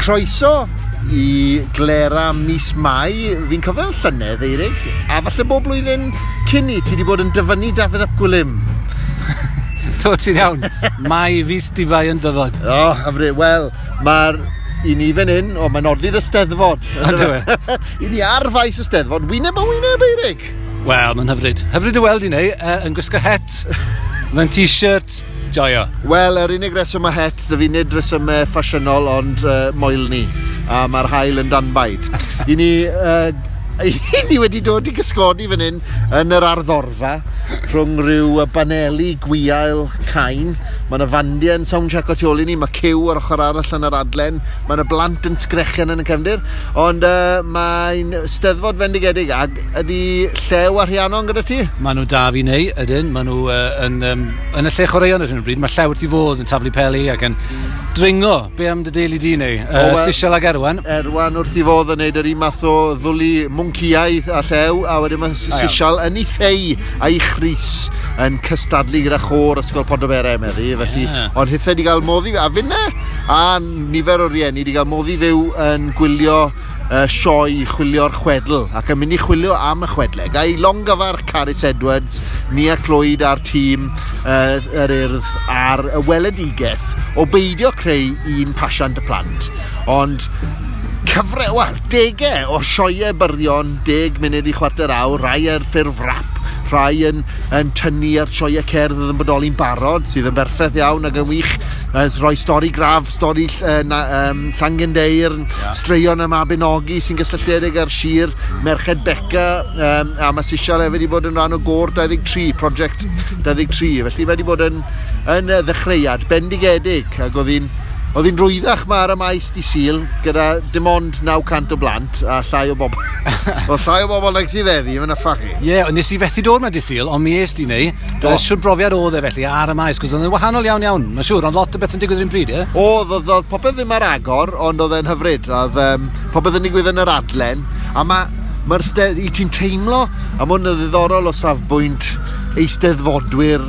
Croeso i glera mis Mai. Fi'n cofio llynedd, Eirig, a falle bob blwyddyn cyn i ti wedi bod yn dyfynnu Dafydd ap Gwilym. Do, ti'n iawn. Mai fis difai yn dyfod. O, oh, hyfryd. Wel, mae'r i ni fan hyn, o, mae'n odli'r Eisteddfod. Yndyw e? I ni ar faes y Steddfod, wyneb a wyneb, Eirig. Wel, mae'n hyfryd. Hyfryd i weld i neu, yn gwisgo het, mewn t-shirt, joio. Wel, yr unig reswm mae het, dy fi nid resymau ffasiynol, ond moelni. A mae'r haul yn danbaid. I ni, i ni wedi dod i gysgodi fan hyn yn yr arddorfa rhwng rhyw baneli gwiail cain. Mae yna fandiau yn soundcheck o tu ôl i ni, mae cyw ar ochr arall yn yr adlen, mae yna blant yn sgrechian yn y cefndir, ond mae'n Steddfod fendigedig. Ac ydy Llew a Rhiannon gyda ti? Maen nhw da fi neu, ydyn. Maen nhw yn y lle chwaraeon ar hyn o bryd. Mae Llew wrth i fodd yn taflu peli ac yn dringo. Be am dy deulu di neu? Sisial ag Erwan. Erwan wrth i fodd yn neud yr un math o ddwlu mwnciaidd a Llew, a wedyn mae Sisial yn ei ffei a'i chrys yn cystadlu gyda chôr Ysgol Pontyberem meddi, felly, yeah. Ond hithau wedi cael modd i, a finne, a nifer o rieni wedi cael modd i fyw yn gwylio sioe chwilio'r chwedl, ac yn mynd i chwilio am y chwedle. Ga i longyfarch Carys Edwards, Nia Clwyd a'r tîm yr Urdd ar y weledigaeth o beidio creu un pasiant y plant, ond cyfre, wel, degau o sioeau byrion, 10 munud i chwarter awr, rai ar ffurf rap, rhai yn tynnu ar sioeau cerdd oedd yn bodoli'n barod, sydd yn berffaith iawn ac yn wych, rhoi stori graff, stori Llangendeirn, yeah. Straeon y Mabinogi sy'n gysylltiedig ar sir, Merched Beca, a mae Sisial hefyd wedi bod yn rhan o Gôr 23, Project 23, felly mae wedi bod yn ddechreuad bendigedig, ac oedd hi'n rwyddach ma ar y maes di Sul gyda dim ond 900 o blant a llai o bobl. Oedd llai o bobl nag sydd heddi, mae'n yffach i. Ie, yeah, nes i fethu dod ma di Sul, ond mi es di neu. Siwr brofiad oedd e felly ar y maes, cos oedd yn wahanol iawn iawn, mae'n siŵr, ond lot o beth yn digwydd yr un pryd, ie? Oedd popeth ddim ar agor, ond oedd e'n hyfryd. Oedd popeth yn digwydd yn yr adlen, a mae'r i ti'n teimlo, a mae hwn yn ddiddorol o safbwynt eisteddfodwyr,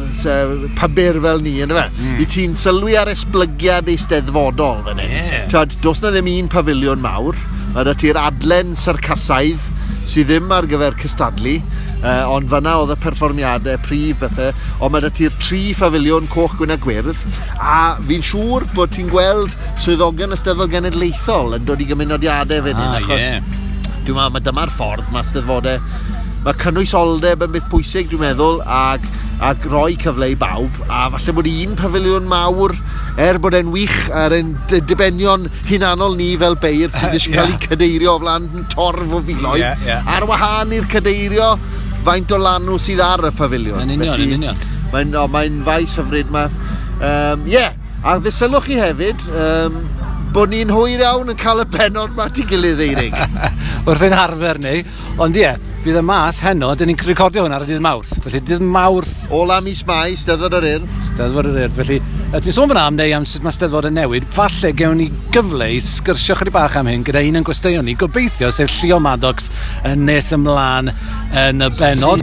pybyr fel ni, ynddo fe? I ti'n sylwi ar esblygiad eisteddfodol fan hyn. Yeah. Twad, does na ddim un pafiliwn mawr, mae 'da ti'r adlen syrcasaidd sydd ddim ar gyfer cystadlu, ond fanna oedd y perfformiadau prif bethau, ond mae 'da ti'r tri phafiliwn coch, gwyn a gwyrdd, a fi'n siŵr bod ti'n gweld swyddogion y Steddfod Genedlaethol yn dod i gymunodiadau fan hyn, achos dwi'n meddwl, mae dyma'r ffordd mae Steddfodau. Mae cynwysoldeb yn beth pwysig, dwi'n meddwl, ac rhoi cyfle i bawb, a falle bod un pafiliwn mawr, er bod e'n wych ar ein dibenion hunanol ni fel beirdd sydd eisiau cael eu cadeirio o flaen torf o filoedd, ar wahân i'r cadeirio faint o lanw sydd ar y pafiliwn. Yn union, yn union. Mae'n faes hyfryd ma. A fe sylwch chi hefyd, bod ni'n hwyr iawn yn cael y pennod ma at ei gilydd, Eirig. Wrth ein harfer ni, ond ie, bydd y mas heno, dyn ni'n recordio hwn ar y dydd Mawrth. Felly dydd Mawrth... Ola mis Mai, Steddfod yr Urdd. Steddfod yr Urdd, felly ti'n sôn fan'na am neu am sut mae Steddfod yn newid, falle gewn ni gyfle i sgyrsio chydig bach am hyn gyda un yn gwesteion ni, gobeithio, sef Llio Maddox yn nes ymlaen yn y bennod.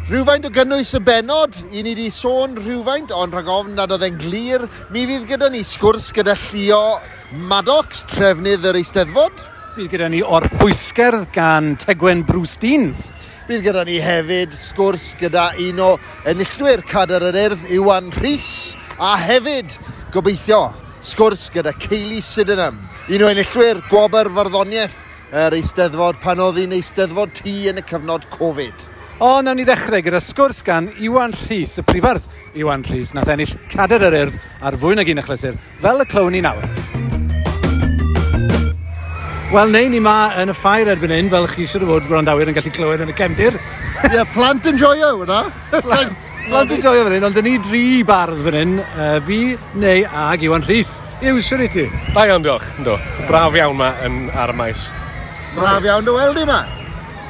Rhywfaint o gynnwys y bennod, i ni wedi sôn rhywfaint, ond rhag ofn nad oedd e'n glir, mi fydd gyda ni sgwrs gyda Llio Maddox, trefnydd yr Eisteddfod. Bydd gyda ni orffwysgerdd gan Tegwen Bruce Deans. Bydd gyda ni hefyd sgwrs gyda un o enillwyr Cadair yr Urdd, Iwan Rhys, a hefyd, gobeithio, sgwrs gyda Kaylee Sydenham, un o enillwyr Gwobr Farddoniaeth yr Eisteddfod pan oedd hi'n Eisteddfod Tŷ yn y cyfnod Covid. O, nawn ni ddechrau gyda sgwrs gan Iwan Rhys, y prifardd Iwan Rhys, nath ennill Cadair yr Urdd ar fwy nag un achlysur, fel y clywn ni nawr. Wel, neu ni ma yn y ffair erbyn hyn, fel chi siŵr o fod gwrandawyr yn gallu clywed yn y cefndir. Ie, plant yn joio, hwnna. Plant yn joio fan hyn, ond dyn ni dri bardd fan hyn, fi, neu ag Iwan Rhys. Yw, siwr i ti? Da iawn, diolch. Ynddo. Braf iawn ma yn, ar y maes. Braf iawn dy weld i ma.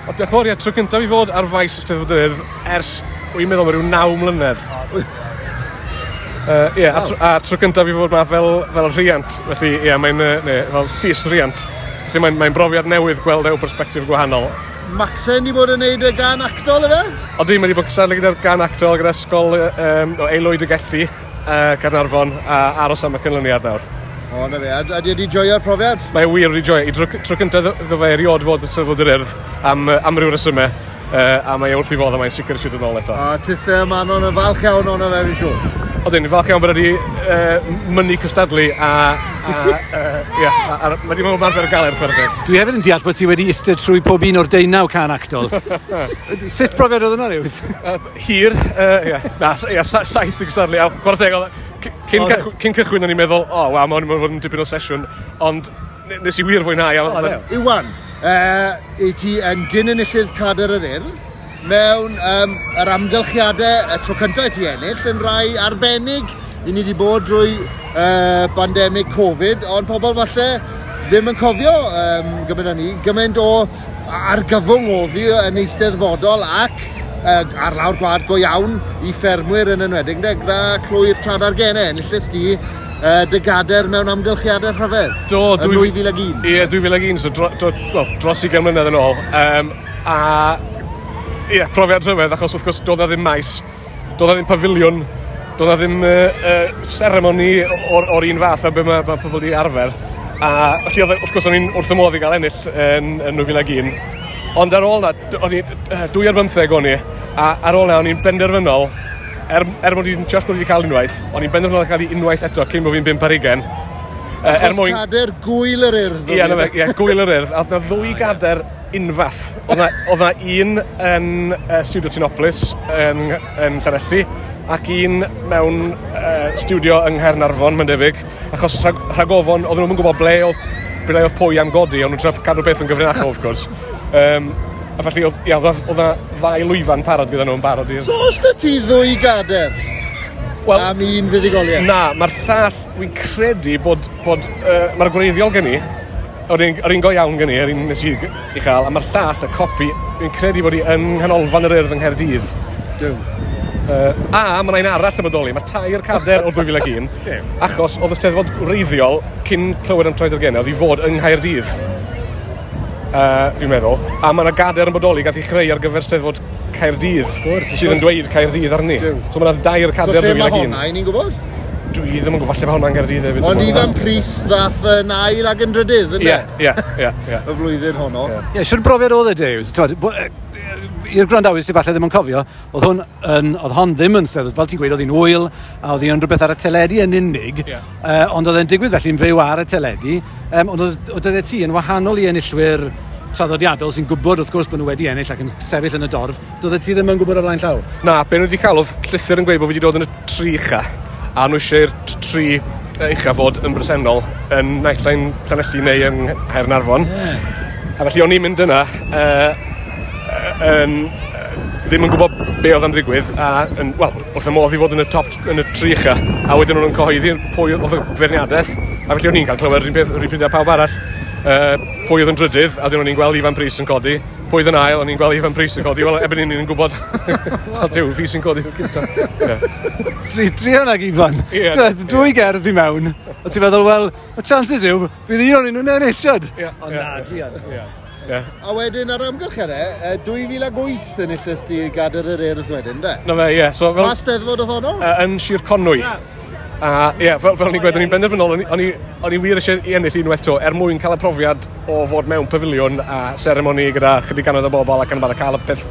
O, diolch yn fawr, ie, tro cyntaf i fod ar faes Eisteddfod yr Urdd ers, wy'n meddwl, mae rhyw 9 mlynedd. Ie, a tro cyntaf i fod ma fel rhiant, felly ie, mae'n fel llys rhiant. Felly mae'n brofiad newydd gweld eu perspectif gwahanol. Maxen di bod yn neud y gan actol, efe? Odi, mae wedi bod cystadlu gyda'r gan actol, gyda ysgol o Aelwyd y Gelli, Caernarfon, a aros am y canlyniad nawr. O, na fe. A di wedi joio'r profiad? Mae wir wedi joio. I dro, tro cyntaf iddo fe erioed fod yn Steddfod yr Urdd am, am ryw resymau. A mae e wrth ei fodd a mae'n sicr eisiau dod nôl eto. A tithe Manon yn falch iawn ono fe, fi'n siŵr. Odyn, falch iawn bod wedi mynnu cystadlu a yeah, a mae wedi bod yn ymarfer galed, chwarae teg. Dwi hefyd yn deall bod ti wedi eistedd trwy pob un o'r 19 can actol. Sut profiad oedd hwnna, Lewis? Hir, yeah. Na, yeah, 7 i gystadlu. A chwarae teg, cyn, cyn cychwyn o'n i'n meddwl, o, oh, waw, mae hwn yn fod yn dipyn o sesiwn, ond nes i wir fwynhau. Iwan, i ti yn gyn-enillydd Cadair yr Urdd, mewn yr amgylchiadau y tro cyntaf i ti ennill yn rai arbennig. I ni wedi bod drwy pandemig Covid, ond pobl falle ddim yn cofio gymaint â ni, gymaint o argyfwng oedd hi yn eisteddfodol ac ar lawr gwlad go iawn i ffermwyr yn enwedig, gyda clwy'r Tradargennau, enillest di dy gader mewn amgylchiadau rhyfedd. Do, yn 2001. Ie, 2001, so dros 20 mlynedd yn ôl. A ie, profiad rhyfedd, achos wrth gwrs doedd na ddim maes, doedd na ddim pafiliwn, doedd na ddim seremoni o'r un fath a be mae pobl wedi arfer. A felly oedd, wrth gwrs o'n i'n wrth y modd i gael ennill yn 2001. Ond ar ôl na, o'n i 2 ar 15 o'n i, a ar ôl na o'n i'n benderfynol, er mod i'n just bod wedi cael unwaith, o'n i'n benderfynol cael ei unwaith eto cyn bod fi'n 5 ar 20. Er mwyn... Cadair Gwyl yr Urdd. Ie, ie, Gwyl yr Urdd. A oedd na ddwy gadair unfath. Oedd na un yn Studio Tinopolis yn Llanelli, ac un mewn studio yng Nghaernarfon, mae'n debyg, achos rhagofon, oedden nhw'n gwybod ble oedd pwy am godi, ond nhw'n trio cadw beth yn gyfrinachol, wrth gwrs. A felly, oedd na ddau lwyfan parod gyda nhw'n barod. So, os da ti ddwy gadair? Well, am un fuddugoliaeth? Na, mae'r llall, wy'n credu bod mae'r gwreiddiol gen i, yr un go iawn gen i, yr un nes i i chael, a mae'r llall, y copi, wy'n credu bod i yng Nghanolfan yr Urdd yng Nghaerdydd. Duw. A mae yna un arall yn bodoli, mae 3 cadair o 2001, achos oedd y Steddfod wreiddiol cyn clywed am Traed-ar-Gennau, oedd i fod yng Nghaerdydd, dwi'n meddwl. A mae yna gadair yn bodoli gath ei chreu ar gyfer Steddfod Caerdydd, sydd yn dweud Caerdydd arni. So mae yna 2 cadair 2001. So lle mae honna, i ni'n gwybod? Dwi ddim yn gwybod, falle mae hwnna'n Gaerdydd hefyd. Ond Ifan Prys ddath yn ail ac yn drydydd, ynddo? Ie. Y flwyddyn honno. Ie, siwr brofiad oedd e, Dave. I'r gwrandawyr sydd falle ddim yn cofio, oedd hon ddim yn steddfod, fel ti'n gweud, oedd hi'n ŵyl, a oedd hi'n rhywbeth ar y teledu yn unig, ond oedd e'n digwydd felly'n fyw ar y teledu, ond oedd ti yn wahanol i enillwyr traddodiadol sy'n gwybod wrth gwrs bod nhw wedi ennill ac yn sefyll yn y dorf, doedd ti ddim yn gwybod o flaen llaw? Na, be nhw wedi cael oedd llythyr yn gweud bod fi wedi dod yn y 3 ucha, a nhw eisiau'r 3 ucha fod yn bresennol yn naill ai'n Llanelli neu yng Nghaernarfon. A felly o'n i'n mynd yna, ddim yn gwybod be oedd am ddigwydd, a wel, wrth y modd i fod yn y top, yn y 3 ucha, a wedyn o'n nhw'n cyhoeddi pwy oedd y feirniadaeth, a felly o'n i'n cael clywed yr un pryd â pawb arall, pwy oedd yn drydydd, a wedyn o'n i'n gweld Ifan Prys yn codi, pwy oedd yn ail, o'n i'n gweld Ifan Prys yn codi, wel, erbyn hyn ni'n gwybod, o Duw, fi sy'n codi o'r cynta. Druan ag Ifan, dwy gerdd i mewn, a ti'n meddwl, wel, y chances yw, fydd un o'n nhw'n ennill, siod? Ond na, druan. Yeah. A wedyn ar amgylchiadau, 2008 enillest di Gadair yr Urdd wedyn, de? Na fe, ie. So, fel, pa steddfod oedd honno? Yn Sir Conwy. A ie, fel o'n i'n gweud, o'n i'n benderfynol, o'n i wir eisiau i ennill unwaith to, er mwyn cael y profiad o fod mewn pafiliwn a seremoni gyda chydig gannoedd o bobl ac yn y cael y peth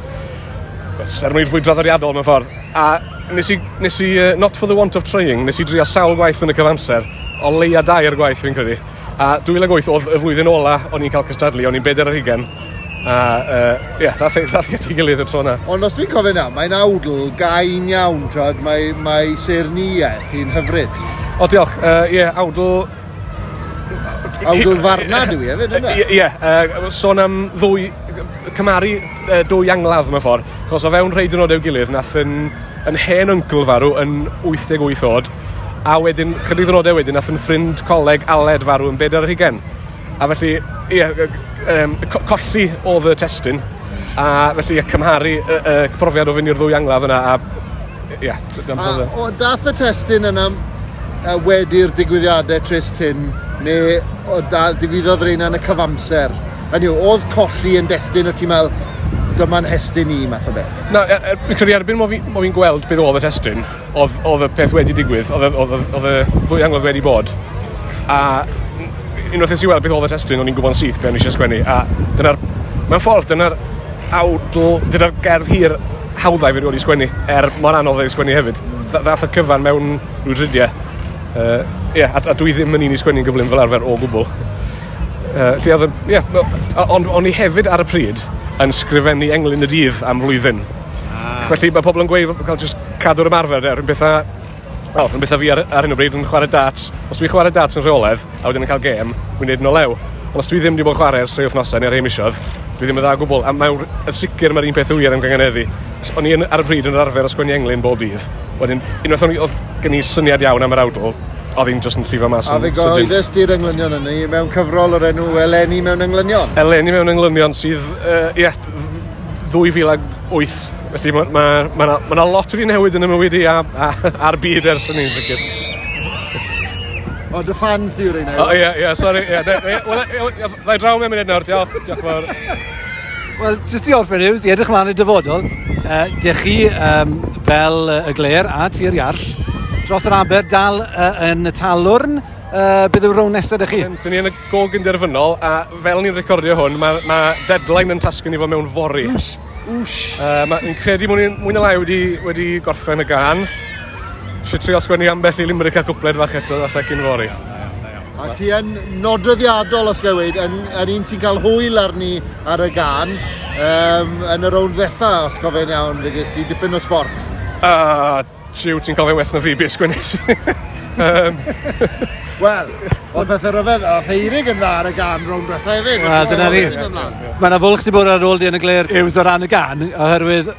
seremoni fwy draddodiadol mewn ffordd. A nes i not for the want of trying, nes i drio sawl gwaith yn y cyfamser, o leia 2 gwaith fi'n credu. A 2008 oedd y flwyddyn ola o'n i'n cael cystadlu, o'n i'n 4 ar 20. A ie, ddath i at ei gilydd y tro yna. Ond os dwi'n cofio na, mae'n awdl gain iawn, twod, mae saernïaeth hi'n hyfryd. O, diolch. Ie, awdl... Awdl farnad yw i hefyd, yna? Ie, sôn am ddwy... Cymaru dwy angladd mewn ffordd. Achos o fewn rhai diwrnodau gilydd, nath yn hen yncl farw yn 88 oed, a wedyn, chydig ddwrnodau wedyn, nath yn ffrind coleg Aled farw yn 4 ar 20. A felly, ie, colli oedd y testun, a felly, cymharu y profiad o fynd i'r ddwy angladd yna, a ie. A dath y testun yna wedi'r digwyddiadau trist hyn, neu digwyddodd rheina yn y cyfamser? Hynny yw, oedd colli yn destun o ti'n meddwl, dyma'n hestyn i, math o beth? Na, fi'n credu erbyn mo fi'n gweld beth oedd y testun, oedd y peth wedi digwydd, oedd y ddwy angladd wedi bod. A unwaith nes i weld beth oedd y testun, o'n i'n gwybod yn syth be o'n i eisiau sgwennu. A dyna'r, mewn ffordd, dyna'r awdl, dyna'r gerdd hir hawddau fi wedi sgwennu, er mor anodd ei sgwennu hefyd. Ddath y cyfan mewn rhyw dridiau. Yeah, a dwi ddim yn un i sgwennu'n gyflym fel arfer o gwbl. Lle oedd, yeah, ond o'n i hefyd ar y pryd yn sgrifennu englyn y dydd am flwyddyn. Felly mae pobl yn gweud cael just cadw'r ymarfer, rhywun bethau, wel, rhywun bethau fi ar hyn o bryd yn chwarae darts. Os dwi'n chwarae darts yn rheolaidd, a wedyn yn cael gêm, dwi'n neud yn o lew. Ond os dwi ddim wedi bod yn chwarae ers 3 wythnosau neu rhai misoedd, dwi ddim yn dda o gwbl. A mae'n yn sicr mae'r un peth wir am gynganeddu. O'n i ar y pryd yn yr arfer o sgwennu englyn bob dydd. Wedyn, unwaith oedd gen i syniad iawn am yr awdl, oedd hi'n just yn llifo mas yn sydyn. A fe gyhoeddus di'r englynion yna mewn cyfrol o'r enw Eleni mewn englynion? Eleni mewn englynion sydd, 2008. Felly mae 'na lot wedi newid yn y mywyd i a'r byd ers hynny'n sicr. O, dy fans di yw'r un. O, ie, sori. Wel, ddau draw mewn munud nawr, diolch. Diolch fawr. Wel, jyst i orffen Hughes, i edrych mlaen i'r dyfodol, dych chi fel y Glêr a Tir Iarll, dros yr aber dal yn y Talwrn, beth yw'r rownd nesaf dych chi? Dyn ni yn y gog yn derfynol, a fel ni'n recordio hwn, mae deadline yn tasgu ni fod mewn fory. Wsh! Fi'n credu mwy na lai wedi gorffen y gan. Eisiau trio sgwennu ambell i limerick a cwpled fach eto, falle cyn fory. A ti yn nodweddiadol, os gael weud, yn un sy'n cael hwyl arni ar y gan, yn y rownd ddetha, os cofio'n iawn, fe ges di dipyn o sport. Jiw, ti'n cofio'n well na fi, beth sgwennes. Wel, oedd pethau rhyfedd, oedd Eirig yn dda ar y gan rownd dwetha hefyd. Wel, dyna ni. Mae yna fwlch di bod ar ôl di yn y Glêr Hughes o ran y gan, oherwydd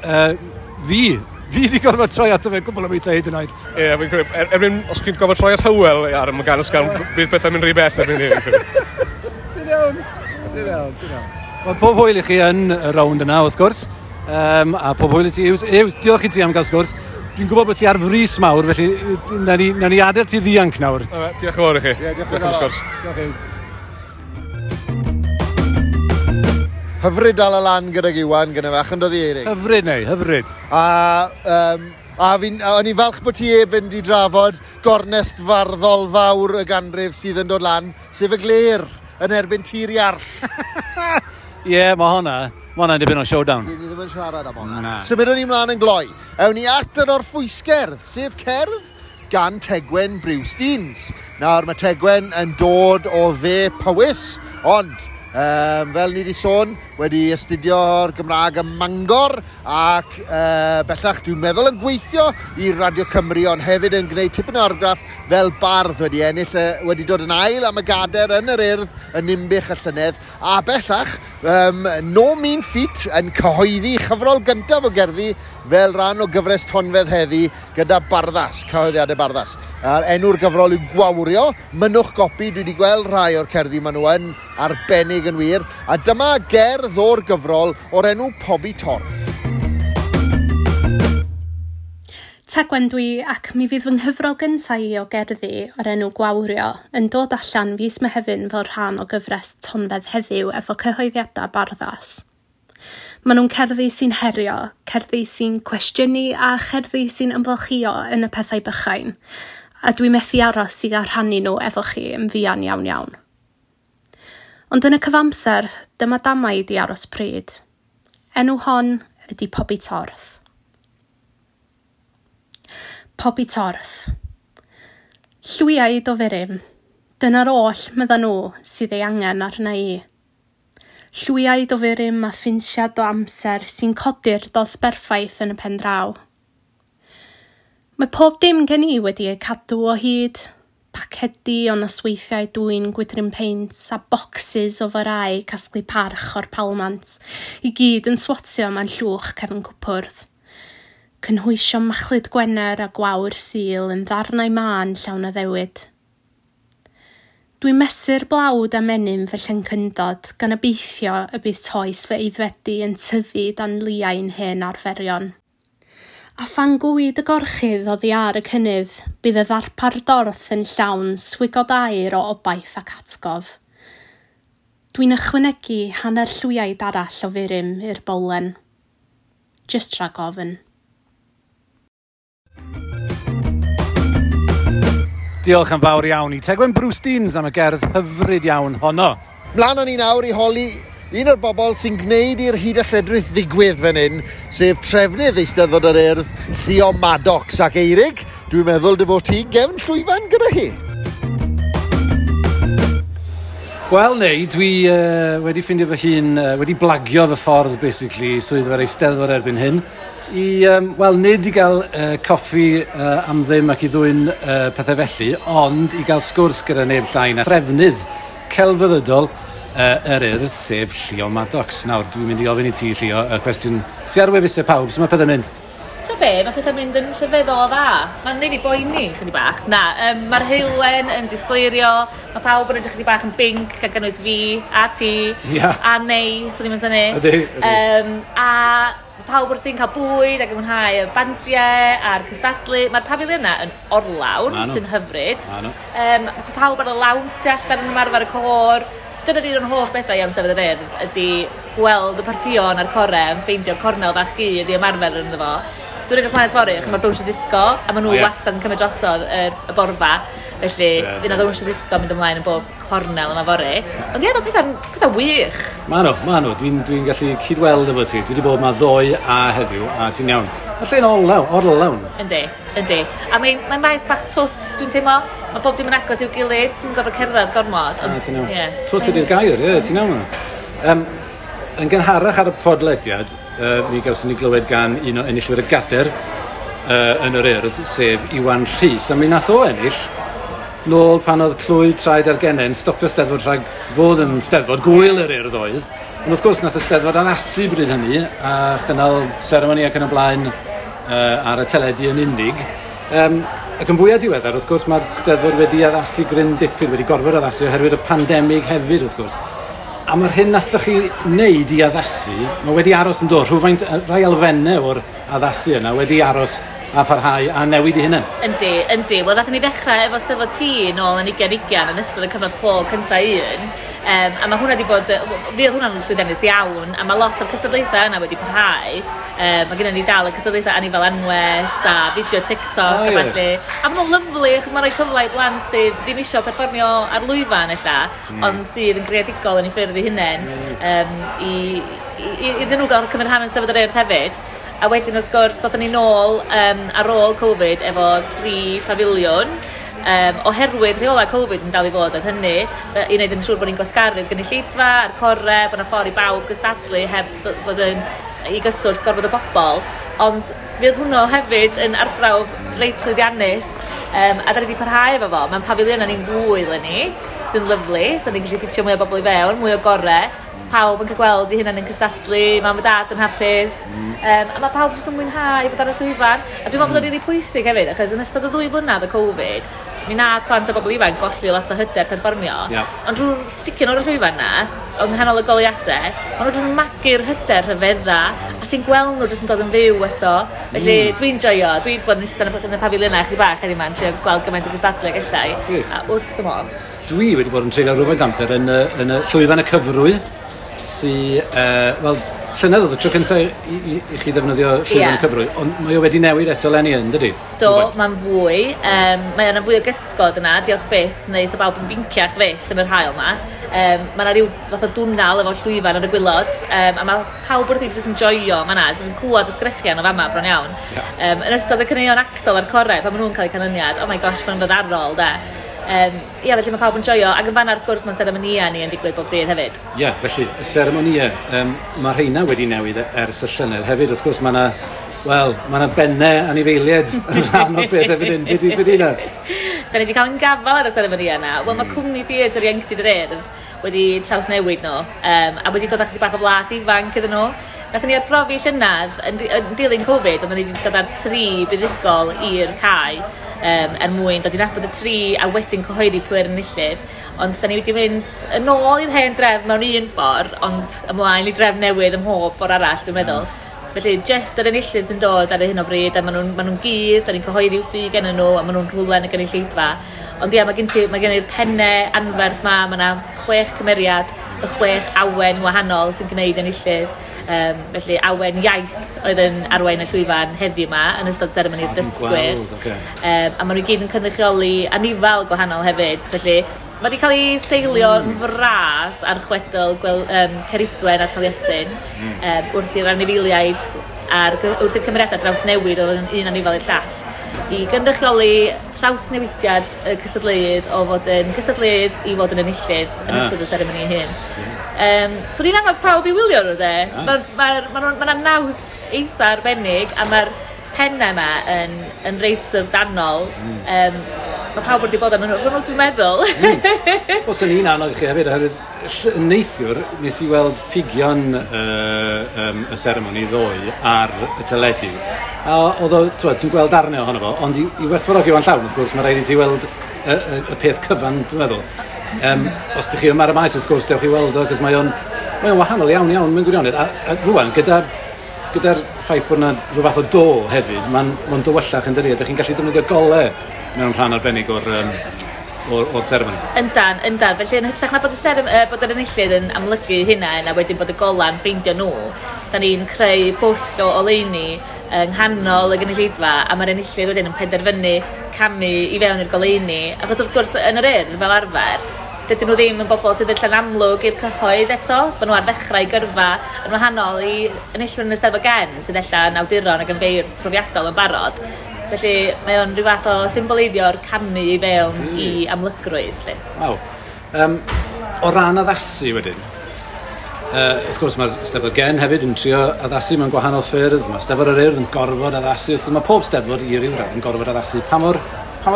fi wedi gorfod troi ato fe gwbl o weithiau hyd yn oed. Ie, fi'n credu, erbyn, os chi'n gorfod troi at Hywel ar y gan ysgafn, bydd pethau'n mynd rhy bell erbyn hyn. Ti'n iawn, ti'n iawn, ti'n iawn. Wel, pob hwyl i chi yn y rownd yna, wrth gwrs, a pob hwyl i ti, Hughes. Hughes, diolch i ti am gael sgwrs. Dwi'n gwybod bod ti ar frys mawr, felly nawn ni adael ti ddianc nawr. Diolch yn fawr i chi. Ie, diolch yn fawr. Diolch, Hughes. Hyfryd dal y lan gydag Iwan gyda fe, yn dod i Eirig. Hyfryd neu, hyfryd. A o'n i'n falch bod ti ef fynd i drafod gornest farddol fawr y ganrif sydd yn dod lan, sef y Glêr yn erbyn Tir Iarll. Ie, mae hwnna'n dipyn o showdown. Dyn ni ddim yn siarad am hwnna. Symudwn ni mlaen yn gloi. Ewn ni at yr orffwysgerdd, sef cerdd gan Tegwen Briwsteins. Nawr mae Tegwen yn dod o dde Powys, ond fel ni wedi sôn, wedi astudio'r Gymraeg ym Mangor ac bellach dwi'n meddwl yn gweithio i Radio Cymru, ond hefyd yn gwneud tipyn o argraff fel bardd, wedi ennill, wedi dod yn ail am y gader yn yr Urdd yn Ninbych y llynedd, a bellach No Mean Feat yn cyhoeddi chyfrol gyntaf o gerddi fel rhan o gyfres Tonfedd heddi gyda Barddas, cyhoeddiadau Barddas. Enw'r gyfrol yw Gwawrio, mynnwch gopi, dwi wedi gweld rhai o'r cerddi maen nhw yn arbennig yn wir, a dyma gerdd o'r gyfrol o'r enw Pobi Torth. Tegwen dwi, ac mi fydd fy nghyfrol gyntaf i o gerddi o'r enw Gwawrio yn dod allan fis Mehefin fel rhan o gyfres Tonfedd heddiw efo cyhoeddiadau Barddas. Maen nhw'n cerddi sy'n herio, cerddi sy'n cwestiynu a cherddi sy'n ymfalchïo yn y pethau bychain, a dwi methu aros i gael rhannu nhw efo chi yn fuan iawn iawn. Ond yn y cyfamser, dyma damaid i aros pryd. Enw hon ydy Pobi Torth. Pobi Torth. Llwiaid o furum. Dyna'r oll, medda nhw, sydd ei angen arna i. Llwiaid o furum a ffinsiad o amser sy'n codi'r dodd berffaith yn y pen draw. Mae pob dim gen i wedi ei cadw o hyd. Pacedi o nosweithiau dwyn gwydryn peint a bocsys o farau casglu parch o'r palmant, i gyd yn swatio mewn llwch cefn cwpwrdd. Cynhwysio machlud Gwener a gwawr Sul yn ddarnau mân llawn addewid. Dwi'n mesur blawd a menyn fy llyncyndod gan obeithio y bydd toes fy eiddfedu yn tyfu dan liain hen arferion. A phan gwyd y gorchudd oddi ar y cynnydd, bydd y ddarpar dorth yn llawn swigod aer o obaith ac atgof. Dwi'n ychwanegu hanner llwyaid arall o furum i'r bowlen. Jyst rhag ofn. Diolch yn fawr iawn i Tegwen Bruce Deans am y gerdd hyfryd iawn honno. Mlaen â ni nawr i holi un o'r bobl sy'n gwneud i'r hyd a lledrith ddigwydd fan hyn, sef trefnydd Eisteddfod yr Urdd, Llio Maddox ac Eirig. Dwi'n meddwl dy fod ti gefn llwyfan gyda hi. Wel, neu, dwi wedi ffindio fy hun, wedi blagio fy ffordd, basically, swyddfa'r Eisteddfod erbyn hyn, i, wel, nid i gael coffi am ddim ac i ddwyn pethau felly, ond i gael sgwrs gyda neb llai na trefnydd celfyddydol yr Urdd, sef Llio Maddox. Nawr, dwi'n mynd i ofyn i ti, Llio, y cwestiwn sy ar wefusau pawb, sut mae pethau'n mynd? Ta be, mae pethau'n mynd yn rhyfeddol o dda. Mae'n neud fi boeni chydig bach. Na, mae'r heulwen yn disgleirio, mae pawb yn edrych chydig bach yn binc, gan gynnwys fi, a ti, a Nei, swn i'n synnu. Ydy, ydy. A pawb wrthi'n cael bwyd ac yn mwynhau y bandiau a'r cystadlu. Mae'r pafiliynau yn orlawn, sy'n hyfryd. Mae pawb ar y lawnt tu allan yn ymarfer y côr. Dyna'r un o'n hoff bethau i am Steddfod yr Urdd ydy gweld y partïon a'r core yn ffeindio cornel fach gudd i ymarfer ynddo fo. Dwi'n edrych mlaen at fory, achos mae'r dawnsio disgo, a maen nhw wastad yn cymryd drosodd y borfa. Felly, fydd yna ddawnsio disgo mynd ymlaen yn bob cornel yma fory. Ond ie, mae pethau'n wych. Ma nhw, ma nhw. Dwi'n gallu cydweld efo ti. Dwi wedi bod yma ddoe a heddiw, a ti'n iawn. Mae'r lle'n orlawn. Yndi, yndi. A mae'n maes bach twt, dwi'n teimlo. Mae bob dim yn agos i'w gilydd, ti'n gorfod cerdded gormod. Ond, ti'n iawn. Twt ydy'r gair, ie, ti'n iawn. Yn gynharach ar y podlediad, mi gawson ni glywed gan un o enillwyr y gader yn yr Urdd, sef Iwan Rhys. A mi nath o ennill nôl pan oedd clwy traed ar genen stopio Steddfod rhag fod yn Steddfod, gwyl yr Urdd oedd. Ond wrth gwrs nath y Steddfod addasu bryd hynny a chynnal seremoni ac yn y blaen ar y teledu yn unig. Ac yn fwyaf diweddar, wrth gwrs, mae'r Steddfod wedi addasu gryn dipyn, wedi gorfod addasu oherwydd y pandemig hefyd, wrth gwrs. A mae'r hyn nathoch chi wneud i addasu, mae wedi aros yn dod, rhywfaint, rhai elfennau o'r addasu yna wedi aros a pharhau a newid i hunain. Yndi, yndi. Wel, nathon ni ddechrau efo Steddfod T nôl yn 2020 yn ystod y cyfnod clo cynta un. A mae hwnna wedi bod, fi oedd hwnna'n llwyddiannus iawn, a mae lot o'r cystadlaethau yna wedi parhau. Mae gennym ni dal y cystadlaethau Anifail Anwes a fideo TikTok a ballu. A maen nhw'n lyfli, achos mae'n rhoi cyfle i blant sydd ddim isio perfformio ar lwyfan ella, ond sydd yn greadigol yn eu ffyrdd eu hunain, iddyn nhw gael cymryd rhan yn Steddfod yr Urdd hefyd. A wedyn wrth gwrs, ddothon ni nôl ar ôl Covid efo 3 pafiliwn, oherwydd rheolau Covid yn dal i fod oedd hynny, i wneud yn siŵr bod ni'n gwasgaru'r gynulleidfa a'r core, bod 'na ffordd i bawb gystadlu heb fod yn i gyswllt gorfod o bobl. Ond fydd hwnnw hefyd yn arbrawf reit llwyddiannus, a da ni wedi parhau efo fo. Mae'n pafiliynau ni'n fwy eleni, sy'n lyfli, so ni'n gallu ffitio mwy o bobl i fewn, mwy o gore. Pawb yn cael gweld eu hunain yn cystadlu, mam a dad yn hapus, a mae pawb jyst yn mwynhau bod ar y llwyfan. A dwi'n meddwl bod o'n rili pwysig hefyd, achos yn ystod y 2 flynedd o Covid, mi nath plant a bobl ifanc golli lot o hyder perfformio. Ond drwy'r sticio nhw ar y llwyfan na, yng nghanol y goleuadau, maen nhw jyst yn magu'r hyder rhyfedda, a ti'n gweld nhw jyst yn dod yn fyw eto. Felly dwi'n joio, dwi wedi bod yn eistedd yn y pafiliynau chydig bach heddiw 'ma, yn trio gweld gymaint o gystadlu ag ella i, a wrth fy modd. Dwi wedi bod yn treulio rhywfaint amser yn y llwyfan y cyfrwy, sy, wel, llynedd oedd y tro cyntaf i chi ddefnyddio llwyfan y cyfrwy, ond mae o wedi newid eto eleni yn, dydy? Do, mae'n fwy. Mae yna fwy o gysgod yna, diolch byth, neu sa bawb yn binciach fyth yn yr haul yma. Mae yna rhyw fath o dwnal efo llwyfan ar y gwilod, a mae pawb wrth i jyst yn joio fan'na. Dwi'n clywed y sgrechian o fama bron iawn. Yn ystod y caneuon actol a'r corau, pan maen nhw'n cael eu canlyniad, oh my gosh, maen nhw'n dod ar ôl, de. Ie, felly mae pawb yn joio, ac yn fan'na wrth gwrs mae'n seremonïau ni yn digwydd bob dydd hefyd. Ie, felly, y seremonïau, mae rheina wedi newid ers y llynedd hefyd, wrth gwrs mae yna, wel, mae yna bennau anifeiliaid yn rhan o'r peth erbyn hyn. Be di hynna? Da ni wedi cael yn gafal ar y seremonïau yna. Wel, mae cwmni theatr ieuenctid yr Urdd wedi trawsnewid nhw, a wedi dod â chydig bach o flas ifanc iddyn nhw. Nathon ni arbrofi llynedd yn dilyn Covid, oedden ni wedi dod â'r 3 buddugol i'r cae, er mwyn dod i nabod y 3 a wedyn cyhoeddi pwy yr enillydd. Ond da ni wedi mynd yn ôl i'r hen drefn mewn un ffordd, ond ymlaen i drefn newydd ym mhob ffordd arall, dwi'n meddwl. Felly, jyst yr enillydd sy'n dod ar hyn o bryd, a maen nhw'n gudd, da ni'n cyhoeddi ffug gennyn nhw, a maen nhw'n rhywle yn y gynulleidfa. Ond ie, mae gen i'r pennau anferth ma, mae yna 6 cymeriad, y 6 awen wahanol sy'n gwneud enillydd. Felly Awen Iaith oedd yn arwain y llwyfan heddiw yma yn ystod seremoni'r dysgwyr. Okay. A maen nhw i gyd yn cynrychioli anifal gwahanol hefyd. Felly mae wedi cael ei seilio yn fras ar chwedl Ceridwen a Taliesin, wrth i'r anifeiliaid a'r wrth i'r cymeriadau drawsnewid o fod yn un anifal i'r llall, i gynrychioli trawsnewidiad y cystadleuydd o fod yn gystadleuydd i fod yn enillydd yn ystod y seremoni ei hun. So ni'n annog pawb i wylio nhw, de. Mae ma, ma, ma, ma naws eitha arbennig a mae'r pennau yma yn reit syfrdanol. Mae pawb wedi bod yn nhw, dwi'n meddwl. Wel, sy'n ni'n annog chi hefyd, oherwydd neithiwr, nes i weld pigion y seremoni ddoe ar y teledu. A oedd o, t'wod, ti'n gweld darnau ohono fo, ond i werthfawrogi fo'n llawn, wrth gwrs, mae rhaid i ti weld y peth cyfan, dwi'n meddwl. Os ydych chi yma ar y maes, wrth gwrs, dewch i weld o, cos mae o'n wahanol iawn, iawn, mewn gwirionedd. A rwan, gyda'r ffaith bod yna rhyw fath o do hefyd, mae'n ma dywyllach yn dydi, a ydych chi'n gallu defnyddio golau mewn rhan arbennig o'r seremoni. Yndan, yndan. Felly yn hytrach na bod yr enillydd yn amlygu hynna a wedyn bod y gola'n ffeindio nhw, da ni'n creu pwll o oleuni yng nghanol y gynulleidfa a mae'r enillydd wedyn yn penderfynu camu i fewn i'r goleuni. Achos wrth gwrs yn yr Urdd fel arfer, dydyn nhw ddim yn bobl sydd yn amlwg i'r cyhoedd eto. Maen nhw ar ddechrau gyrfa yn wahanol i enillwyr yn y Steddfod Gen sydd ella yn awduron ac yn feirdd profiadol yn barod. Felly mae o'n rhyw fath o symboleiddio'r camu i fewn i amlygrwydd. Lly. Waw. O ran addasu wedyn, wrth gwrs mae'r Steddfod Gen hefyd yn trio addasu mewn gwahanol ffyrdd, mae Steddfod yr Urdd yn gorfod addasu, wrth gwrs mae pob Steddfod i ryw radd yn gorfod addasu. Pa mor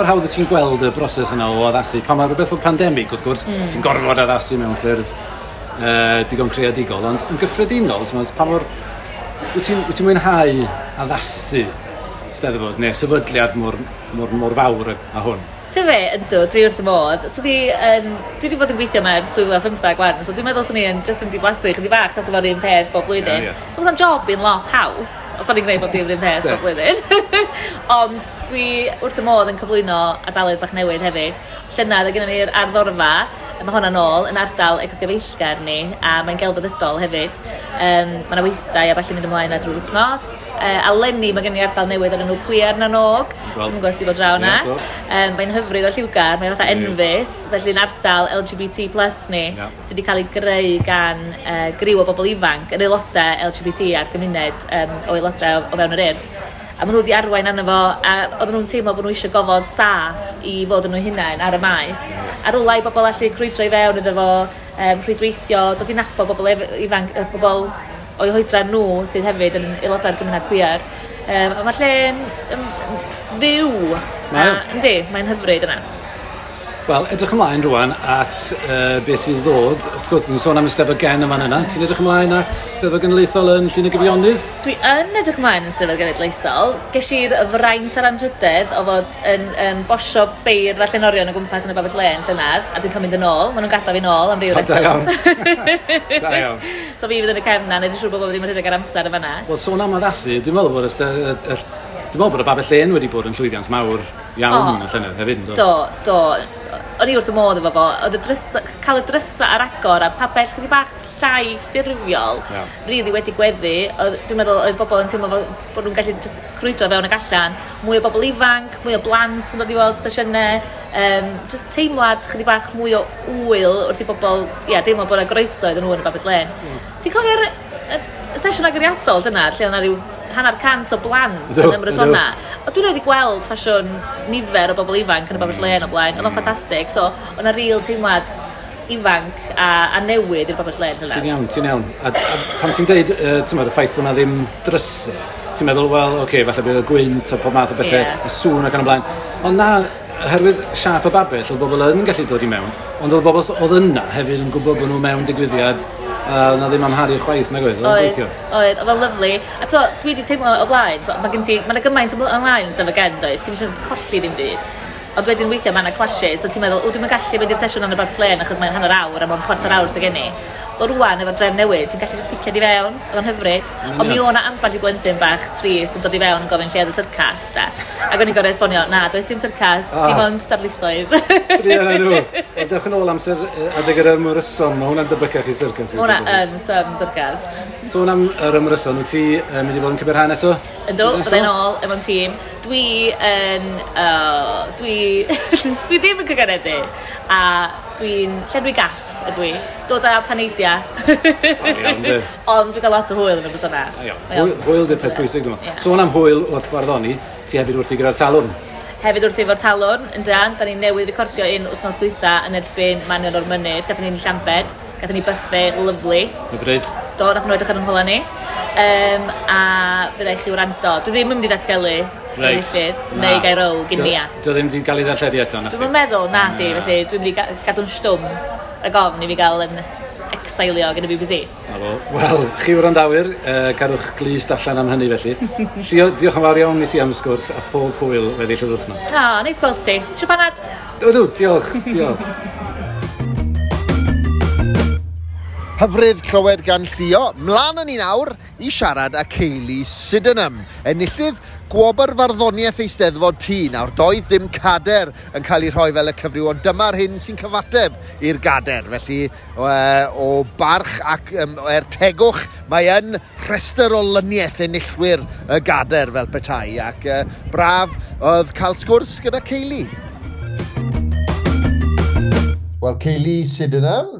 hawdd wyt ti'n gweld y broses yna o addasu? Pa mor rhywbeth fel pandemig, wrth gwrs, ti'n gorfod addasu mewn ffyrdd digon creadigol, ond yn gyffredinol, ti'n meddwl, pa mor... Wyt ti'n mwynhau addasu Steddfod neu sefydliad mor, mor, mor fawr â hwn? Ti'n fe, yndw, dwi wrth y modd. So dwi wedi bod yn gweithio yma ers 2015 gwan, so dwi'n meddwl swn i yn just yn diflasu chydig bach tas efo'r un peth bob blwyddyn. Ie, ie. Dwi'n meddwl job i'n lot haws, os da ni'n gwneud bob dim yr un peth bob blwyddyn. Ond dwi wrth y modd yn cyflwyno ardaloedd bach newydd hefyd. Llynedd, oedd gennym ni'r arddorfa, a mae hwnna'n ôl yn ardal ecogyfeillgar ni, a mae'n gelfyddydol hefyd. Mae yna weithdai a ballu mynd ymlaen ar drwy'r wythnos. A leni mae gen i ardal newydd o'r enw Cwiar na Nog. Gweld. Dwi'n gwybod os ti bod draw yna. Ie, do. Mae'n hyfryd o lliwgar, mae'n fatha enfys, felly'n ardal LGBT plus ni, sydd wedi cael ei greu gan griw o bobl ifanc, yn aelodau LGBT a'r gymuned o aelodau o fewn yr Urdd. A maen nhw wedi arwain arno fo, a oedden nhw'n teimlo bod nhw eisiau gofod saff i fod yn nhw hunain ar y maes. A rwla i bobl allu crwydro i fewn iddo fo, rhwydweithio, dod i nabod bobl ifanc, bobl o'i hoedran nhw sydd hefyd yn aelodau'r gymuned queer. A mae'r lle'n fyw. Mae o. Yndi, mae'n hyfryd yna. Wel, edrych ymlaen rwan at beth sydd ddod. Wrth gwrs, dwi'n sôn am y Steddfod Gen yma yna. Ti'n edrych ymlaen at Steddfod Genedlaethol yn Llyn y Gyfionydd? Dwi yn edrych ymlaen yn Steddfod Genedlaethol. Ges i'r fraint a'r anrhydedd o fod yn bosio beirdd a llenorion o gwmpas yn y Babell Lên llynedd, a dwi'n cael mynd yn ôl. Maen nhw'n gadael fi nôl am ryw O, da reswm. iawn. Da iawn. So fi fydd yn y cefn na, neud yn siŵr bod bob ddim yn rhedeg ar amser y fanna. Wel, sôn am addasu, dwi'n meddwl bod y Babell Lên wedi bod yn llwyddiant mawr iawn y llynedd hefyd, yndo? Do, do. O'n i wrth y modd efo fo. Oedd y drysa, cael y drysa ar agor a pabell chydig bach llai ffurfiol, really wedi gweddu. Dwi'n meddwl oedd bobl yn teimlo fel bod nhw'n gallu just crwydro fewn ac allan. Mwy o bobl ifanc, mwy o blant yn dod i weld sesiynau. Just teimlad chydig bach mwy o ŵyl wrth i bobl, ia, deimlo bod yna groeso iddyn nhw yn y Babell Lên. Ti'n cofio'r y sesiwn agoriadol llynedd, lle oedd 'na ryw 50 o blant yn ymrysona? O, dwi'n rhaid i gweld ffasiwn nifer o bobl ifanc yn y Babell Lên o blaen. Oedd o'n ffantastig. So, oedd 'na real teimlad ifanc a newydd i'r Babell Lên Ti'n llynedd. iawn, ti'n iawn. A pan ti'n deud, ti'n meddwl, y ffaith bod na ddim drysau, ti'n meddwl, wel, oce, okay, falle bydd y gwynt a pob math o bethau, y sŵn ac yn y blaen. Ond na, oherwydd siâp y babell, oedd bobl yn gallu dod i mewn, ond oedd bobl oedd yna hefyd yn gwybod bod nhw mewn digwyddiad, a oedd na ddim amharu chwaith, nag oedd, oedd o'n Oedd, gweithio. oedd, oedd o'n lyfli. A to, dwi wedi teimlo o blaen, to, mae gen ti, mae yna gymaint ymlaen yn Steddfod Gen, does, ti'n eisiau colli ddim byd. Ond wedyn weithiau mae yna clashes, so ti'n meddwl, o, dwi'n gallu mynd i'r sesiwn yn y Babell Lên achos mae'n hanner awr a mae'n chwarter awr sydd gen i. Wel rwan, efo'r drefn newydd, ti'n gallu just picio di fewn, oedd o'n hyfryd. Ond mi o'na ambell i blentyn bach trist yn dod i fewn yn gofyn lle oedd y syrcas, da. Ac o'n i'n gorfod esbonio, na, does dim syrcas, dim ond darlithoedd. Druan â nhw. Wel, dewch yn ôl amser adeg yr ymryson, mae hwnna'n debycach i syrcas. Mae hwnna yn some syrcas. Sôn am yr ymryson, wyt ti mynd i fod yn cymryd rhan eto? Yndw, byddai'n ôl efo'n tîm. Dwi yn... dwi, dwi ddim yn cyganedu. A dwi'n llenwi gap ydw i. Dod â paneidia. Ond dwi'n cael lot o hwyl yn y persona. Hwyl di'r peth pwysig, dwi'n meddwl. Sôn am hwyl wrth farddoni, ti hefyd wrthi gyda'r Talwrn. Hefyd wrthi efo'r Talwrn, yn dan. Da ni newydd recordio un wythnos dwytha yn erbyn Manion o'r Mynydd. Gathon ni'n Llambed. Gathon ni buffet lyfli. Hyfryd. Do, nath nhw edrych ar yn hola ni. A fydda i chi wrando. Dwi ddim yn mynd i ddatgelu enillydd, neu gael row gyn Nia. Dio ddim wedi cael ei ddarlledu eto, na? Dwi'n meddwl, na di, felly dwi'n mynd i gadw'n stwm rhag ofn i fi gael yn exilio gan y BBC. Wel, chi wrandawyr, cadwch glust allan am hynny felly. Llio, diolch yn fawr iawn i ti am y sgwrs a pob hwyl weddill yr wythnos. O, neis gweld ti. Tisio panad? Ydw, diolch, diolch. Hyfryd clywed gan Llio. Mlaen â ni nawr i siarad â Kaylee Sydenham, enillydd gwobr farddoniaeth Eisteddfod T. Nawr, doedd ddim cader yn cael ei rhoi fel y cyfryw, ond dyma'r hyn sy'n cyfateb i'r gader. Felly, o barch ac er tegwch, mae yn rhestr o lyniaeth enillwyr y gader fel petai. Ac braf oedd cael sgwrs gyda Kaylee. Wel, Kaylee Sydenham,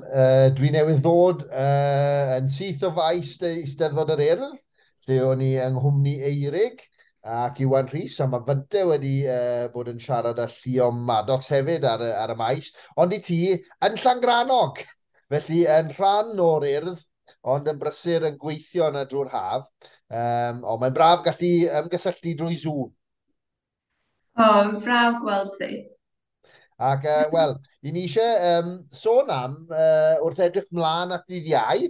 dwi newydd ddod yn syth o faes Eisteddfod yr Urdd, lle o'n i yng nghwmni Eirig ac Iwan Rhys, a mae Fynte wedi bod yn siarad â Llio Maddox hefyd ar y maes, ond i ti yn Llangrannog, felly yn rhan o'r Urdd, ond yn brysur yn gweithio yna drwy'r haf, ond mae'n braf gallu ymgysylltu drwy Zoom. O, braf gweld ti. Ac, wel, i ni eisiau sôn am, wrth edrych mlaen at ddydd Iau,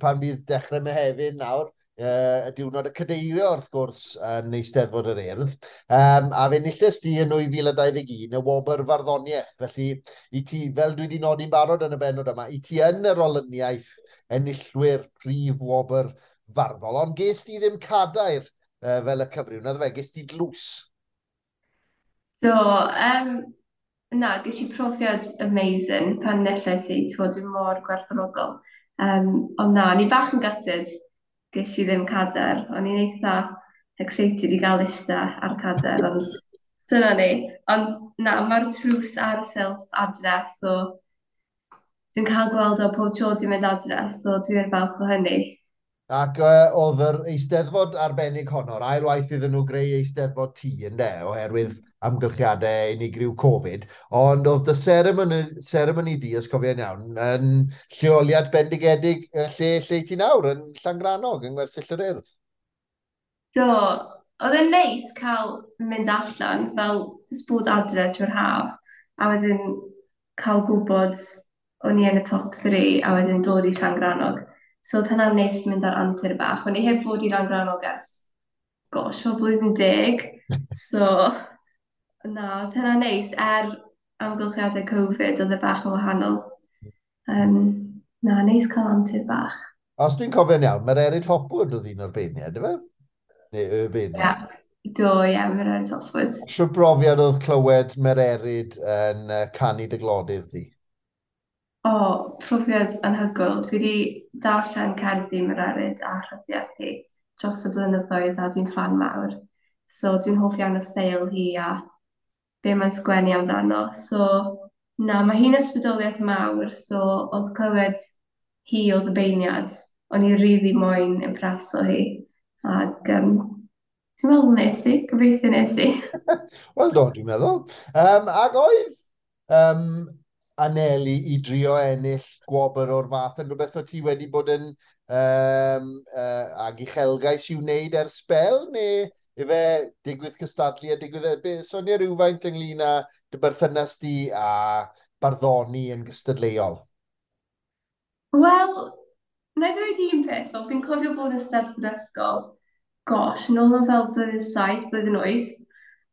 pan bydd dechrau Mehefin nawr, y diwrnod y cadeirio, wrth gwrs, yn Eisteddfod yr Urdd, a fe enillest di yn 2021 y wobr farddoniaeth. Felly, i ti, fel dwi wedi nodi'n barod yn y bennod yma, i ti yn yr olyniaeth enillwyr prif wobr farddol, ond ges di ddim cadair fel y cyfryw, naddo fe, ges di dlws? Do, na, ges i profiad amazing pan enillais i, dwi'n mor gwerthfawrogol. Ond na, o'n i bach yn gutted, ges i ddim cader. O'n i'n eitha excited i gael eistedd ar cader, ond dyna ni. Ond na, mae'r tlws ar y silff adre, so dwi'n cael gweld o pob tro dwi'n mynd adre, so dwi'n falch o hynny. Ac oedd yr Eisteddfod arbennig honno'r ail waith iddyn nhw greu Eisteddfod T, ynde, oherwydd amgylchiadau unigryw Covid, ond oedd dy seremoni di, os cofio'n iawn, yn lleoliad bendigedig lle ti nawr, yn Llangrannog, yng Ngwersyll yr Urdd. Do, oedd e'n neis cael mynd allan, fel jyst bod adre trwy'r haf, a wedyn cael gwybod o'n i yn y top 3, a wedyn dod i Llangrannog. So oedd hynna'n neis mynd ar antur bach. O'n i heb fod i Langrannog ers, gosh, o blwyddyn 10. So, na, oedd hynna'n neis. Amgylchiadau Covid, oedd e bach yn wahanol. Na, neis cael antur bach. Os dwi'n cofio'n iawn, Mererid Hopwood oedd un o'r beirniaid, ife? Neu y beirniaid? Ie, do, ie, Mererid Hopwood. Shwt brofiad oedd clywed Mererid yn canu dy glodydd di? O, profiad anhygoel. Dwi wedi darllen cerddi Mererid a rhyddiaeth hi dros y blynyddoedd a dwi'n ffan mawr. So dwi'n hoff iawn o steil hi a be mae'n sgwennu amdano. So na, mae hi'n ysbrydoliaeth mawr, so oedd clywed hi oedd y beirniad, o'n i rili moyn impreso hi. Ac dwi'n meddwl nes i, gobeithio nes i. Wel do, dwi'n meddwl. Ac oedd anelu i drio ennill gwobr o'r fath yn rhywbeth o ti wedi bod yn ag uchelgais i'w wneud ers sbel, neu ife digwydd cystadlu a digwydd... Sonia rhywfaint ynglyn â dy berthynas di a barddoni yn gystadleuol? Wel, na i ddweud un peth, fel fi'n cofio bod yn Eisteddfod ysgol, gosh, nôl yn fel blwyddyn 7, blwyddyn 8,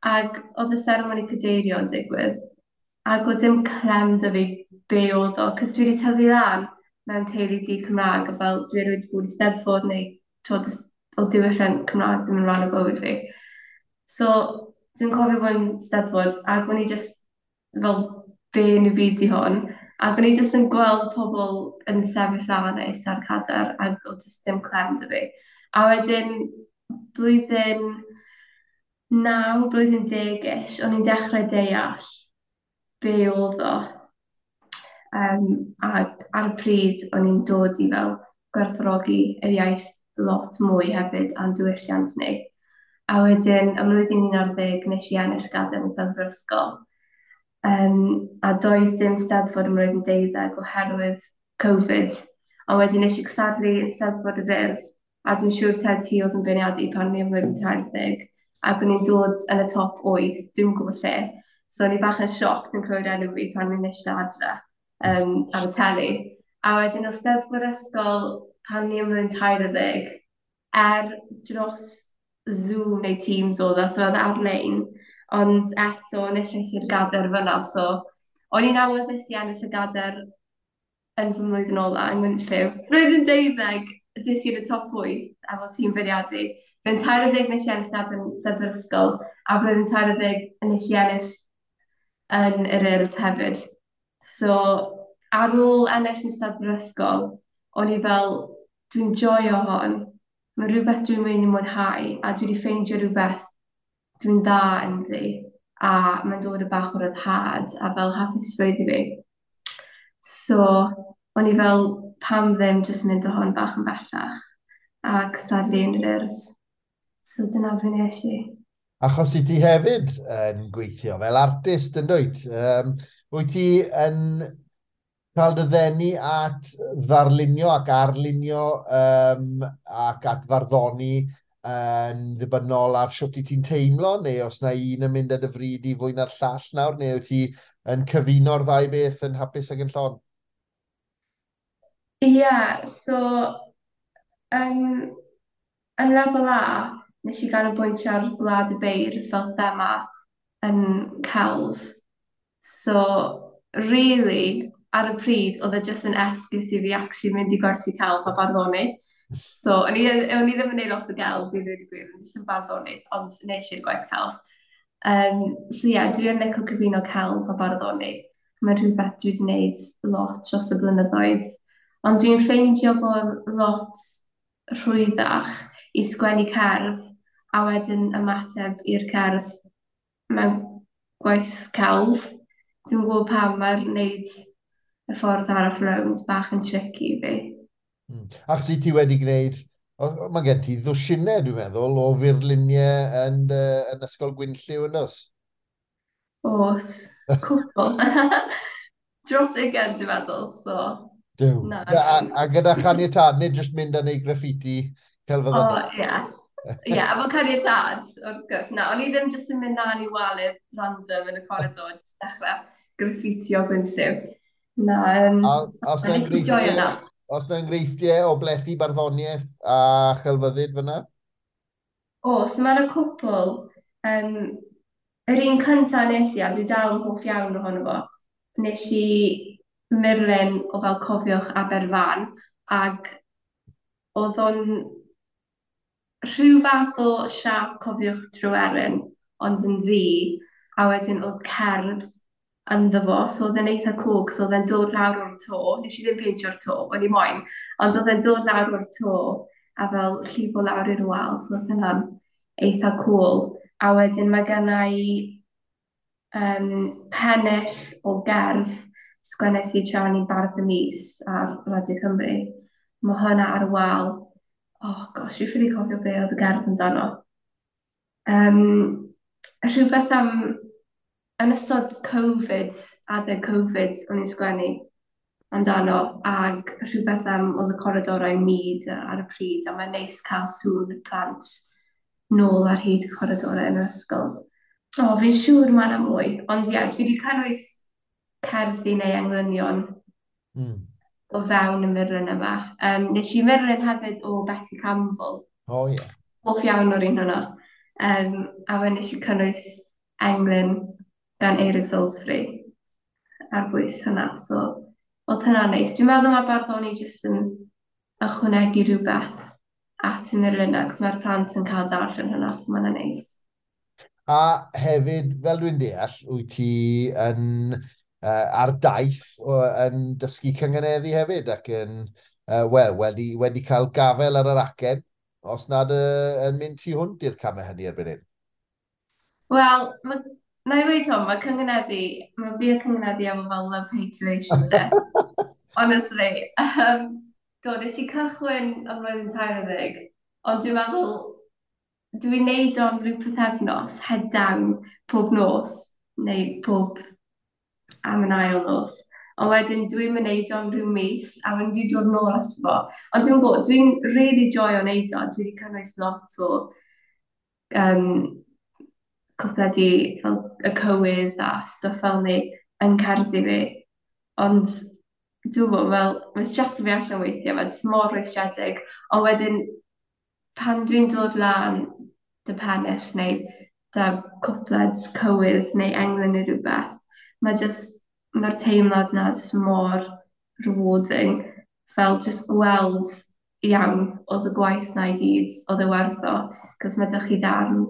ac oedd y seremoni cadeirio yn digwydd, ac oedd dim clem 'da fi be oedd o, cos dwi wedi tyfu lan mewn teulu di Cymraeg, a fel dwi erioed wedi bod i Steddfod neu t'wod, o diwylliant Cymraeg ddim yn rhan o bywyd fi. So, dwi'n cofio bod yn Steddfod, ac o'n i just fel, be yn y byd di hwn? Ac o'n i just yn gweld pobl yn sefyll lan a eistedd ar cadair, ac oedd just dim clem 'da fi. A wedyn, blwyddyn 9, blwyddyn 10-ish, o'n i'n dechrau deall be oedd o. Ac ar y pryd, o'n i'n dod i fel gwerthfawrogi yr iaith lot mwy hefyd a'n diwylliant ni. A wedyn, ym mlwyddyn 11, nes i ennill gadair yn Steddfod Ysgol. A doedd dim Steddfod ym mlwyddyn 12 oherwydd Covid. Ond wedyn nes i cystadlu yn Steddfod yr Urdd, a dwi'n siŵr taw ti oedd yn beirniadu pan o'n i ym mlwyddyn 13, ac o'n i'n dod yn y top 8, dwi'n gwybod lle. So o'n i bach yn shocked yn clywed enw fi pan o'n i'n eistedd adre ar y teli. A wedyn o Steddfod Ysgol pan o'n i ym mlwyddyn 13, dros Zoom neu Teams oedd e, so oedd e ar-lein, ond eto enillais i'r gadair fyna, so o'n i'n awyddus i ennill y gadair yn fy mlwyddyn ola yng Ngwynllyw. Blwyddyn 12, des i yn y top 8 efo tîm beirniadu. Blwyddyn 13 nes i ennill gadair yn Steddfod Ysgol, a blwyddyn 13 nes i ennill yn yr Urdd hefyd. So, ar ôl ennill yn Steddfod Ysgol, o'n i fel, dwi'n joio hon, mae rhywbeth dwi'n mynd i mwynhau, a dwi wedi ffeindio rhywbeth dwi'n dda ynddi, a mae'n dod o bach o ryddhad a fel hapusrwydd i fi. So, o'n i fel, pam ddim jyst mynd o hon bach yn bellach a cystadlu yn yr Urdd. So dyna fe nes i. Achos i ti hefyd yn gweithio fel artist yn dwyt. Wyt ti yn cael dy ddenu at ddarlunio ac arlunio ac at farddoni yn ddibynnol ar shwt i ti'n teimlo, neu os na un yn mynd ar dy fryd i fwy na'r llall nawr, neu wyt ti yn cyfuno'r ddau beth yn hapus ac yn llon? Ie, yeah, so yn lefel A, nes i ganolbwyntio ar Gwlad y Beirdd fel thema yn celf. So, really, ar y pryd, oedd e jyst yn esgus i fi actually mynd i gwersi celf a barddoni. So, o'n i ddim yn gwneud lot o gelf, i ddweud y gwir, o'n i jyst yn barddoni, ond nes i'r gwaith celf. So ie, yeah, dwi yn licio cyfuno celf a barddoni. Mae'n rhywbeth dwi wedi gwneud lot dros y blynyddoedd. Ond dwi'n ffeindio bod lot rhwyddach i sgwennu cerdd a wedyn ymateb i'r cerdd mewn gwaith celf. Dwi'n gwybod pam mae'r wneud y ffordd arall rownd bach yn tricky i fi. Achos i ti wedi gwneud, mae gen ti ddwsinau, dwi'n meddwl, o furluniau yn Ysgol Gwynllyw yn does? Oes, cwpl. Dros 20, dwi'n meddwl, so... Duw. Na, a gyda chaniatâd, nid jyst mynd a neud graffiti celfyddydol. O, ie. Ie, efo caniatâd, wrth gwrs. Na, o'n i ddim jyst yn mynd lan i walydd random yn y corridor, jyst dechrau graffiti o Gwynllyw. Na, os na enghreifftiau o blethu barddoniaeth a chelfyddyd fyna? O, so mae'n y cwpl. Yr un cyntaf nes i, a dwi dal yn hoff iawn ohono fo, nes i murlun o fel Cofiwch Aberfan, ac oedd o'n rhyw fath o siâp Cofiwch Tryweryn, ond yn ddu, a wedyn oedd cerdd ynddo fo, so oedd e'n eitha cool, so oedd e'n dod lawr o'r to, nes i ddim peintio'r to, o'n i moyn, ond oedd e'n dod lawr o'r to, a fel llifo lawr i'r wal, so oedd hynna'n eitha cool. A wedyn mae genna i pennill o gerdd sgwennes i tra o'n i'n Bardd y Mis ar Radio Cymru. Mae hwnna ar y wal. Oh gosh, dwi'n ffili cofio be oedd y gerdd amdano. Rhywbeth am, yn ystod Covid, adeg Covid, o'n i'n sgwennu amdano, ag rhywbeth am oedd y coridorau mud ar y pryd, a mae'n neis cael sŵn y plant nôl ar hyd y coridorau yn yr ysgol. O, fi'n siŵr mae yna mwy, ond ie, dwi wedi cynnwys cerddi neu englynion o fewn y murlun yma. Nes i murlun hefyd o Betty Campbell. O, ie. Hoff iawn o'r un hwnna. A fe nes i cynnwys englyn gan Eirig Salisbury ar bwys hwnna. So, oedd hynna'n neis. Dwi'n meddwl mae barddoni jyst yn ychwanegu rhywbeth at y murlunau, cos mae'r plant yn cael darllen hynna, so mae'n neis. A hefyd, fel dwi'n deall, wyt ti yn ar daith yn dysgu cynganeddu hefyd ac yn, wel, wedi cael gafel ar yr acen, os nad yn mynd tu hwnt i'r camau hynny erbyn hyn. Wel, na i weud hwn, mae cynganeddu, mae fi a cynganeddu efo fel love-hate relationship. Honestly. Do, nes i cychwyn am flwyddyn 13, ond dwi'n meddwl, dwi'n neud o am ryw pythefnos, head down, pob nos, neu pob am yn ail nos. Ond wedyn dwi'n mynd neud o am ryw mis, a wedyn dwi'n dod nôl ato fo. Ond dwi'n gwybod, dwi'n really joio neud o, dwi wedi cynnwys lot o cwpledi fel y cywydd a stwff fel ni yn cerddi fi. Ond dwi'n gwybod, fel, mae'n streso fi allan weithiau, mae'n jyst mor rwystredig. Ond wedyn, pan dwi'n dod lan dy pennill neu dy cwpled cywydd neu englyn neu rhywbeth, mae jyst, mae'r teimlad na jyst mor rewarding. Fel jyst gweld iawn oedd y gwaith na i gyd, oedd e werth o, cos mae dych chi darn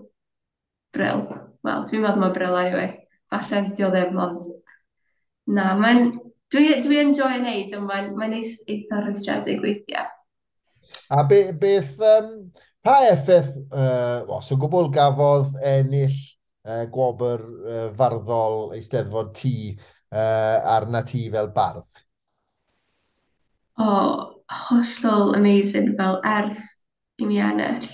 bril. Wel, dwi'n meddwl mae bril anyway. Falle di o ddim, ond na, mae'n... Dwi enjoy wneud, ond mae'n neis eitha rwystredig weithiau. A beth, pa effaith, os o gwbl gafodd ennill gwobr farddol Eisteddfod T arna ti fel bardd? O, hollol amazing, fel ers i mi ennill.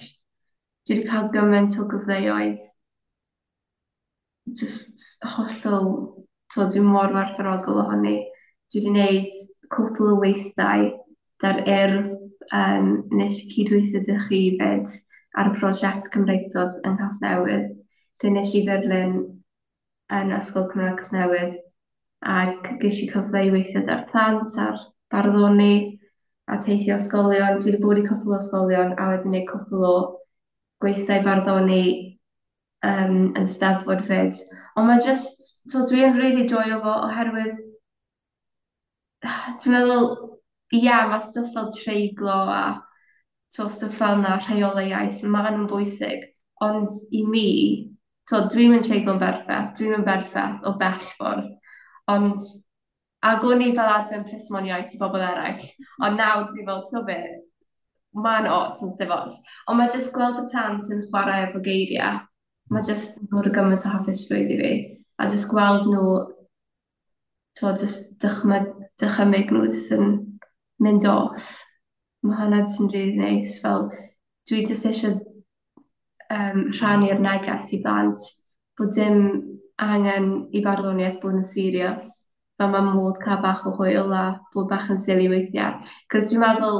Dwi wedi cael gymaint o gyfleoedd. Just hollol, dwi'n mor werthfawrogol ohoni. Dwi wedi gwneud cwpl o weithdai da'r Urdd, nes i cydweithio â chi fyd ar y prosiect Cymreictod yng Nghasnewydd, lle nes i furlun yn Ysgol Cymraeg Casnewydd, ac ges i cyfle i weithio da'r plant a'r barddoni a teithio ysgolion. Dwi wedi bod i cwpl o ysgolion a wedi gwneud cwpl o gweithdai barddoni yn Steddfod fyd. Ond mae just, dwi'n really joio fo oherwydd dwi'n meddwl, ie, yeah, mae stwff fel treiglo a stwff fel yna, rheolau iaith, maen nhw'n bwysig. Ond i mi, dwi'n mynd treiglo'n berffaith, dwi'n mynd berffaith o bell ffordd. Ond, ac o'n i fel arfer yn plismon iaith i bobl eraill, ond nawr dwi'n fel, ti'n be, mae'n ots yn sdim ots. Ond mae jyst gweld y plant yn chwarae efo geiriau, mae jyst yn dod o gymaint o hapusrwydd i fi. A jyst gweld nhw, jyst dychymyg nhw jyst yn mynd off. Mae hwnna jyst yn really neis. Fel, dwi jyst eisiau rhannu'r neges i blant bod dim angen i barddoniaeth bod yn serious. Fel mae modd cael bach o hwyl a bod bach yn silly weithiau. Cos dwi'n meddwl,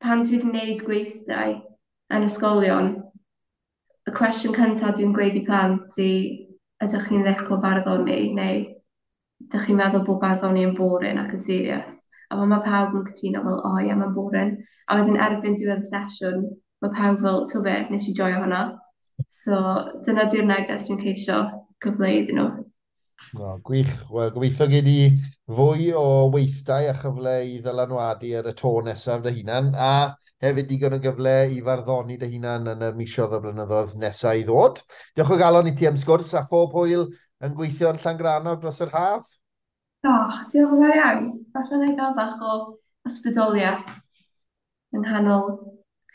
pan dwi wedi gwneud gweithdai yn ysgolion, y cwestiwn cyntaf dwi'n gweud i plant i ydych chi'n licio barddoni neu ydych chi'n meddwl bod barddoni yn boring ac yn serious. A mae pawb yn cytuno fel, o ie, mae'n boring. A wedyn erbyn diwedd y sesiwn, mae pawb fel, ti'n be, nes i joio hwnna. So dyna di'r neges dwi'n ceisio cyfleu iddyn nhw. No, gwych. Wel, gobeithio gei di fwy o weithdai a chyfle i ddylanwadu ar y to nesaf dy hunan, a hefyd digon o gyfle i farddoni dy hunan yn y misoedd o blynyddoedd nesaf i ddod. Diolch o galon i ti am sgwrs a phob hwyl yn gweithio yn Llangrannog dros yr haf. O, diolch yn fawr iawn. Falle na i gael bach o ysbrydoliaeth yng nghanol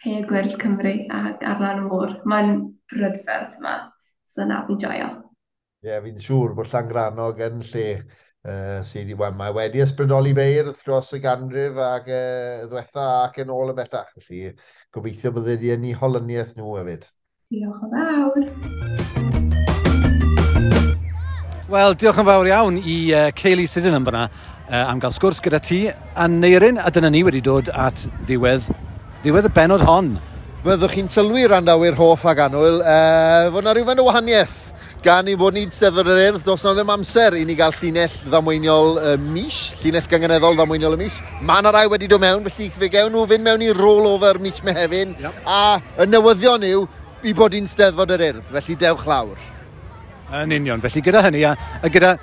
Caeau Gwyrdd Cymru ac ar lan y môr. Mae'n brydferth yma, so na, fi'n joio. Ie, yeah, fi'n siŵr bod Llangrannog yn lle sydd mae wedi ysbrydoli beirdd dros y ganrif ac ddwetha ac yn ôl ymhellach. Felly gobeithio bydde di yn eu holyniaeth nhw hefyd. Diolch yn fawr. Wel, diolch yn fawr iawn i Kaylee Sydenham fyna am gael sgwrs gyda ti Aneirin, a dyna ni wedi dod at ddiwedd y bennod hon. Byddwch chi'n sylwi randawyr hoff ag annwyl, fod na rhywfaint o wahaniaeth gan i fod ni'n Steddfod yr Urdd, does na ddim amser i ni gael llinell ddamweiniol y mis, llinell gynganeddol ddamweiniol y mis. Mae yna rai wedi dod mewn, felly fe gewn nhw fynd mewn i rollover mis Mehefin, yep. A y newyddion yw i bod ni'n Steddfod yr Urdd, felly dewch lawr. Yn union, felly gyda hynny, a gyda...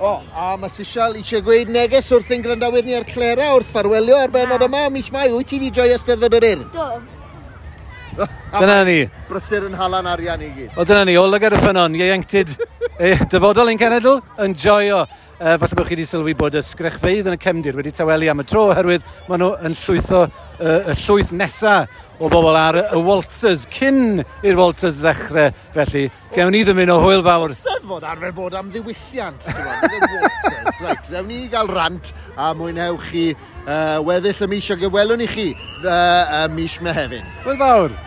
O, a mae Sisial eisiau gweud neges wrth ein gwrandawyr ni ar Clera wrth ffarwelio ar benod yma mis Mai. Wyt ti wedi joio Steddfod yr Urdd? Do. Dyna ni. Brysur yn halan arian i gyd. O, dyna ni, o lygad y ffynnon, ieuenctid, dyfodol ein cenedl, yn joio. Falle bod chi wedi sylwi bod y sgrechfeydd yn y cefndir wedi tawelu am y tro oherwydd maen nhw yn llwytho y llwyth nesa o bobl ar y waltzers cyn i'r waltzers ddechrau. Felly, gewn ni ddymuno hwyl fawr. Steddfod arfer bod am ddiwylliant, ti'n gwbod, nid y waltzers. Reit, rewn ni gael rant a mwynhewch chi weddill y mis ac y welwn i chi mis Mehefin. Hwyl fawr!